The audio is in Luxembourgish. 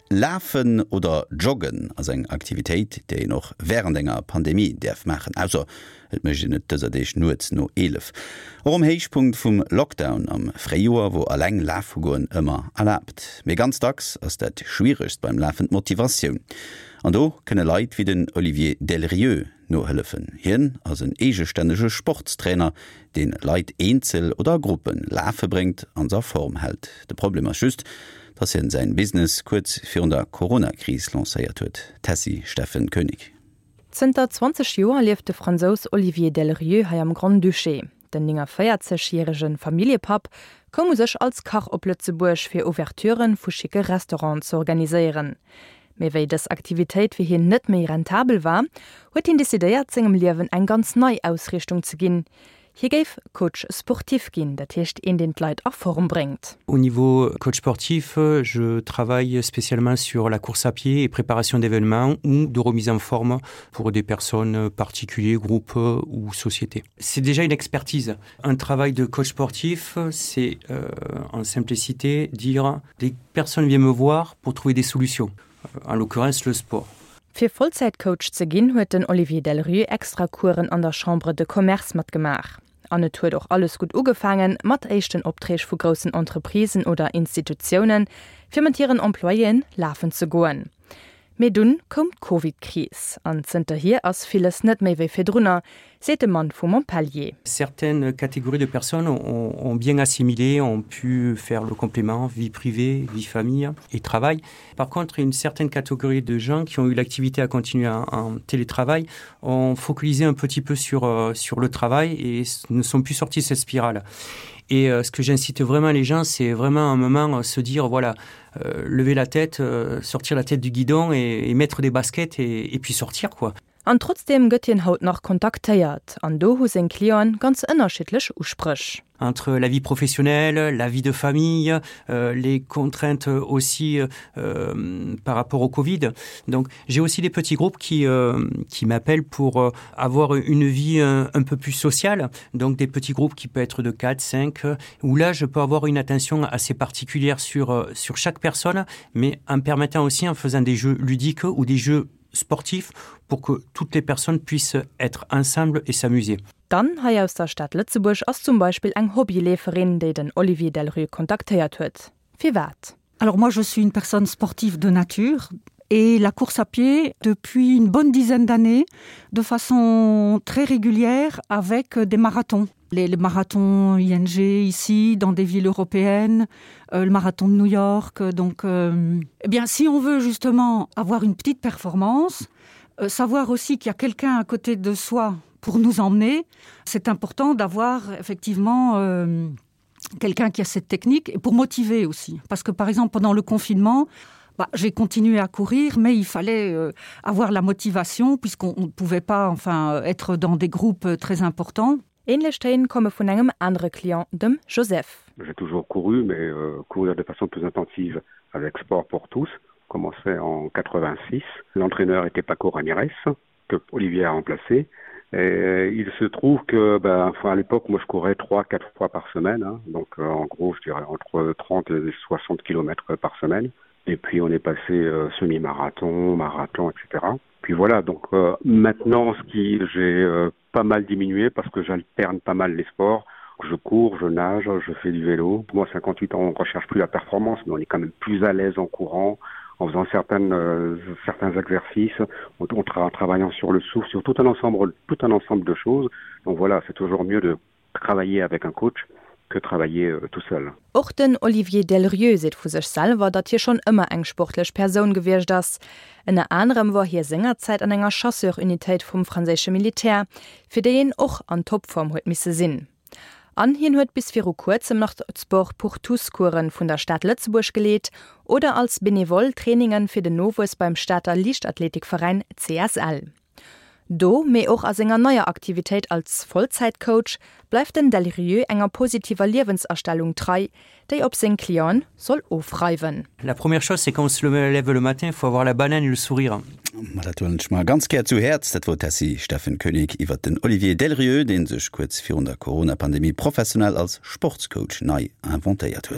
Lafen oder Joggen ass eng Aktivitéit, déi een och wärend enger Pandemie däerf maachen, ausser et mécht een et dëser Deeg nuets no 11. Och um Héichpunkt vum Lockdown am Fréijoer wor eleng lafe goen ëmmer erlaabt. Mee ganz dacks ass dat Schwieregst beim Lafen d'Motivatioun. An do kënne Leit wéi den Olivier Delrieu nohëllefen. Hien ass en eegestännege Sportstrainer, deen Leit eenzel oder a Gruppe lafe bréngt an se a Form hält. De Problem ass just, dass hien säin Business kuerz virun der Corona-Kris lancéiert huet. Tessy Steffen Koenig. Zënter 20 Joer lieft de Fransous Olivier Delrieu hei am Grand-Duché. Den 49 järege Familljepapp koum u sech als Kach op Lëtzebuerg, fir Ouverturen vu schicke Restauranten ze organiséieren. Mee wéi dës Aktivitéit fir hien net méi rentabel war, huet hien decidéiert, sengem Liewen eng ganz nei Ausriichtung ze ginn. Hie géif Coach sportif ginn, dat heescht een, deen d'Leit a Form bréngt. Au niveau coach sportif, je travaille spécialement sur la course à pied et préparation d'événements ou de remise en forme pour des personnes particuliers, groupes ou sociétés. C'est déjà une expertise. Un travail de coach sportif, c'est euh, en simplicité dire des personnes viennent me voir pour trouver des solutions, en l'occurrence le sport. Fir Vollzäitcoach ze ginn, huet den Olivier Delrieu extra Coursen an der Chambre de Commerce matgemaach. An et huet och alles gutt ugefaangen, mat éischten Opträg vu groussen Entreprisen oder Institutiounen, fir mat hiren Employéen lafen ze goen. Mee dunn koum d'Covid-Kris an zënterhier ass villes net méi wéi virdrunner, seet de Mann vu Montpellier. Certaines catégories de personnes ont, ont bien assimilé, ont pu faire le complément vie privée, vie famille et travail. Par contre, une certaine catégorie de gens qui ont eu l'activité à continuer en, en télétravail ont focalisé un petit peu sur, euh, sur le travail et ne sont plus sortis de cette spirale. Et euh, ce que j'incite vraiment les gens, c'est vraiment un moment euh, se dire voilà, euh, lever la tête, euh, sortir la tête du guidon et, et mettre des baskets et, et puis sortir quoi. An trotzdeem gëtt hien haut nach kontaktéiert, an do hu seng Clienten ganz ënnerschiddlech Uspréch. Entre la vie professionnelle, la vie de famille, euh, les contraintes aussi euh, par rapport au Covid. Donc j'ai aussi des petits groupes qui, euh, qui m'appellent pour euh, avoir une vie un, un peu plus sociale, donc des petits groupes qui peuvent être de 4, 5, où là je peux avoir une attention assez particulière sur, euh, sur chaque personne, mais en permettant aussi en faisant des jeux ludiques ou des jeux sportifs pour que toutes les personnes puissent être ensemble et s'amuser. D'Anne hei aus der Stad Lëtzebuerg ass zum Beispill eng Hobbyleeferin, déi den Olivier Delrue kontaktéiert huet. Firwat? Alors moi je suis une personne sportive de nature et la course à pied depuis une bonne dizaine d'années de façon très régulière avec des marathons. Les, les marathons ING ici dans des villes européennes, euh, le marathon de New York donc euh, eh bien si on veut justement avoir une petite performance, euh, savoir aussi qu'il y a quelqu'un à côté de soi pour nous emmener, c'est important d'avoir effectivement euh, quelqu'un qui a cette technique et pour motiver aussi parce que par exemple pendant le confinement, bah, j'ai continué à courir mais il fallait euh, avoir la motivation puisqu'on ne pouvait pas enfin être dans des groupes très importants. Ähnlech Téin komme vun engem anere Client, dem Joseph. J'ai toujours couru mais euh, courir de façon plus intensive avec sport pour tous commençait en 86. L'entraîneur était Paco Ramirez que Olivier a remplacé. Et il se trouve que ben, enfin, à l'époque moi je courais 3 4 fois par semaine hein, donc euh, en gros je dirais entre 30 et 60 km par semaine et puis on est passé euh, semi-marathon, marathon etc. Puis voilà donc euh, maintenant ce qui j'ai euh, pas mal diminué parce que j'alterne pas mal les sports je cours, je nage, je fais du vélo. Moi 58 ans on recherche plus la performance mais on est quand même plus à l'aise en courant en faisant certaines euh, certains exercices en, en, tra en travaillant sur le souffle sur tout un ensemble tout un ensemble de choses donc voilà c'est toujours mieux de travailler avec un coach que travailler euh, tout seul. Och den Olivier Delrieu seet vu sech selwer, datt hie schonn ëmmer eng sportlech Persoun gewiescht ass. Ënner anerem wor hie sengerzäit an enger Chasseur-Unitéit vum franséische Militär, fir déi een och an Topform huet misse sinn. An hien huet bis viru kuerzem nach d'Sport pour tous-Coursen vun der Stad Lëtzebuerg geleet oder als Benevole Traininge fir den Nowuess beim Stater Liichtathletikveräin CSL. Do, mee och a senger neier Aktivitéit als Vollzäitcoach, bleift den Delrieu enger positiver Liewensastellung trei, déi op seng Clienten soll ofreiwen. La première chose, c'est quand on se lève le matin, il faut avoir la banane et le sourire. Ma dat huelen ech mer ganz gär zu Häerz. Dat wor d'Tessy Steffen Koenig iwwert den Olivier Delrieu, dee sech kuerz virun der Corona-Pandemie professionell als Sportscoach nei inventéiert huet.